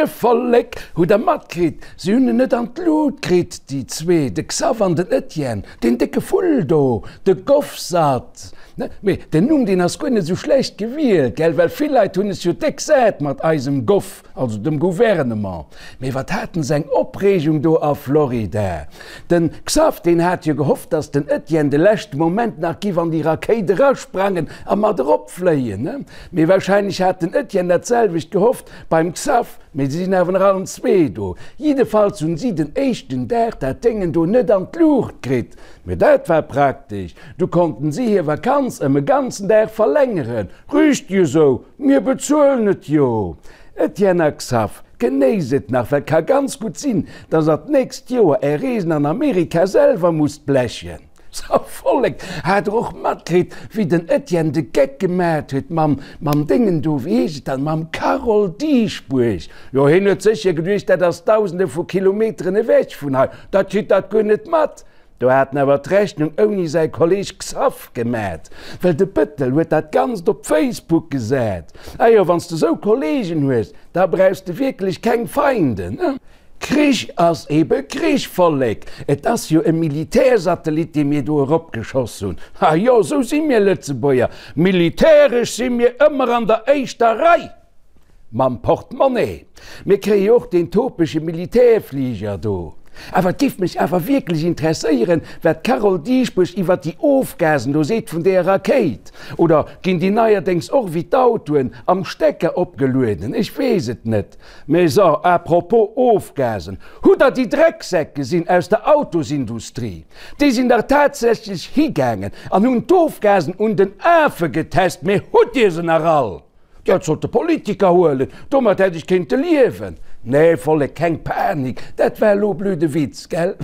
Moie Vollek! Hutt der matkritt, si hunn en net an d'Lut kritt, déi zwee, de Xav an den Etienne, deen décke Vull do, de Govsat. Mee den Numm, deen ass guer net esou schlecht gewielt, gell, well vill Leit hunn es jo déck sat mat eisem Gov, also dem Gouvernement. Mee wat haten se eng Opreegung do a Florida! Den Xav, deen hat jo gehofft, dass den Etienne de leschte Moment nach giff an déi Rakéit erasprangen a mat eropfléien. Mee wahrscheinlech hat den Etienne dat selwecht gehofft beim Xav, mee si sinn awer nach allen zwee do. Jiddefalls hunn si den éischten Dag dat Déngen do net an d'Luucht kritt. Mee dat war praktesch, du konnten si hir Vakanz ëm e ganzen Dag verlängeren. Riicht jo sou, mir bezuelen et jo. Etienne a Xav, genéisst et nach, well ka ganz gutt sinn, dass der d'nächst Joer är Reesen an Amerika selwer musst blechen. Sou, Vollek, hat der och matkritt, wéi den Etienne de Geck gemat huet mam, mam Déngen do, wéi heescht et dann, mam Carole Dieschbourg? Jo, hien huet sécher geduecht, dat ass dausende vu Kilometeren ewech vun hei, dat kritt dat guer net mat. Do hat en awer d'Rechnung ouni säi Kolleg Xaph gemat, well de Bëttel huet dat Ganzt op Facebook gesat. Ah jo, wann s de sou Kollegen hues, da brauchs de wierklech keng Feinden, ne? Krich ass ebe Krich, Vollek! Et ass jo e Militärsatellit, dee mir do eropgeschoss hunn. Ah jo, sou si mir Lëtzebuerger, militäresch si mir ëmmer an der éischter Rei! Mam Portemonnaie. Mir kréie jo och deen topege Militärfliger do. Awer et géif mech awer wierklech interesséieren, wat d'Carole Dieschbourg iwwert déi Ofgasen do seet vun deeër Rakéit. Oder ginn déi neierdéngs och wéi d'Autoen am Stecker opgelueden? Ech weess et net. Mee so, à propos Ofgasen, hutt der déi Drecksäck gesinn aus der Autosindustrie? Déi sinn dach tatsächlech higaangen an hunn d'Ofgasen un den Afe getest. Mee hutt Dir se nach all? Dat sollt de Politiker huelen, domat hätt ech kéinte liewen. Nee, Vollek, keng Panik, dat war elo blöde Witz, gell?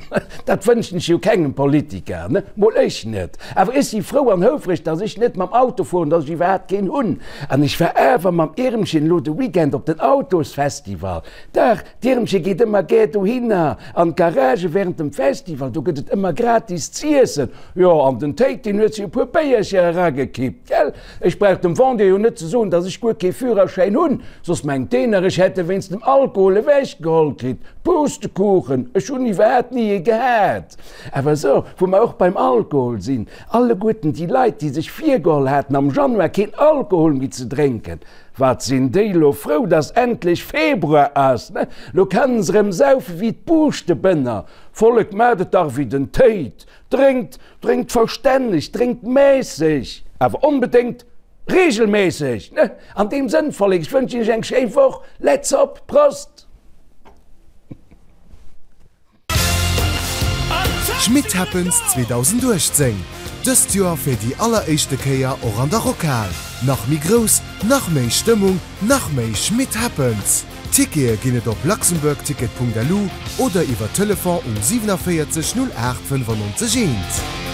Dat wënschen ech jo kengem Politiker, ne? Mol ech net. Awer ech si frou an houfreg, dass ech net mam Auto fueren, dass ech iwwerhaapt keen hunn. An ech war awer mam Irmchen elo de Weekend op den Autosfestival. Dach, d'Irmche geet ëmmer gär dohinner an d'Garage während dem Festival, do gëtt et ëmmer gratis z'iessen. Jo, an den Téit, deen huet sech e puer Béiercher eragekippt, gell? Ech brauch dem Vendeur jo net ze soen, dass ech guer kee Führerschäin hunn, soss mengt deen nach, ech hätt e wéinst dem Alkohol ewechgeholl kritt. Pustekuchen, ech hunn iwwerhaapt ni ee gehat. Awer sou, wou mer och beim Alkohol sinn, alleguerten déi Leit, déi sech virgeholl haten, am Januar keen Alkohol méi ze drénken, wat sinn déi elo frou, dass endlech Februar ass, ne? Lo kennen se erëm saufe wéi d'Buuschtebënner. Vollek, maacht et dach wéi den Téit, Drénkt, drénkt verstänneg, drénkt mässeg, awer onbedéngt regelmässeg, ne? An deem Sënn, Vollek, ech wënschen iech eng schéi Woch, let's op, Prost! Schmitt Happens 2018, dëst Joer fir déi alleréischte Kéier och an der Rockhal. Nach méi grouss, nach méi Stëmmung, nach méi Schmitt Happens! Tickete ginn et op luxembourgticket.lu oder iwwer Telefon um 47 08 95 1.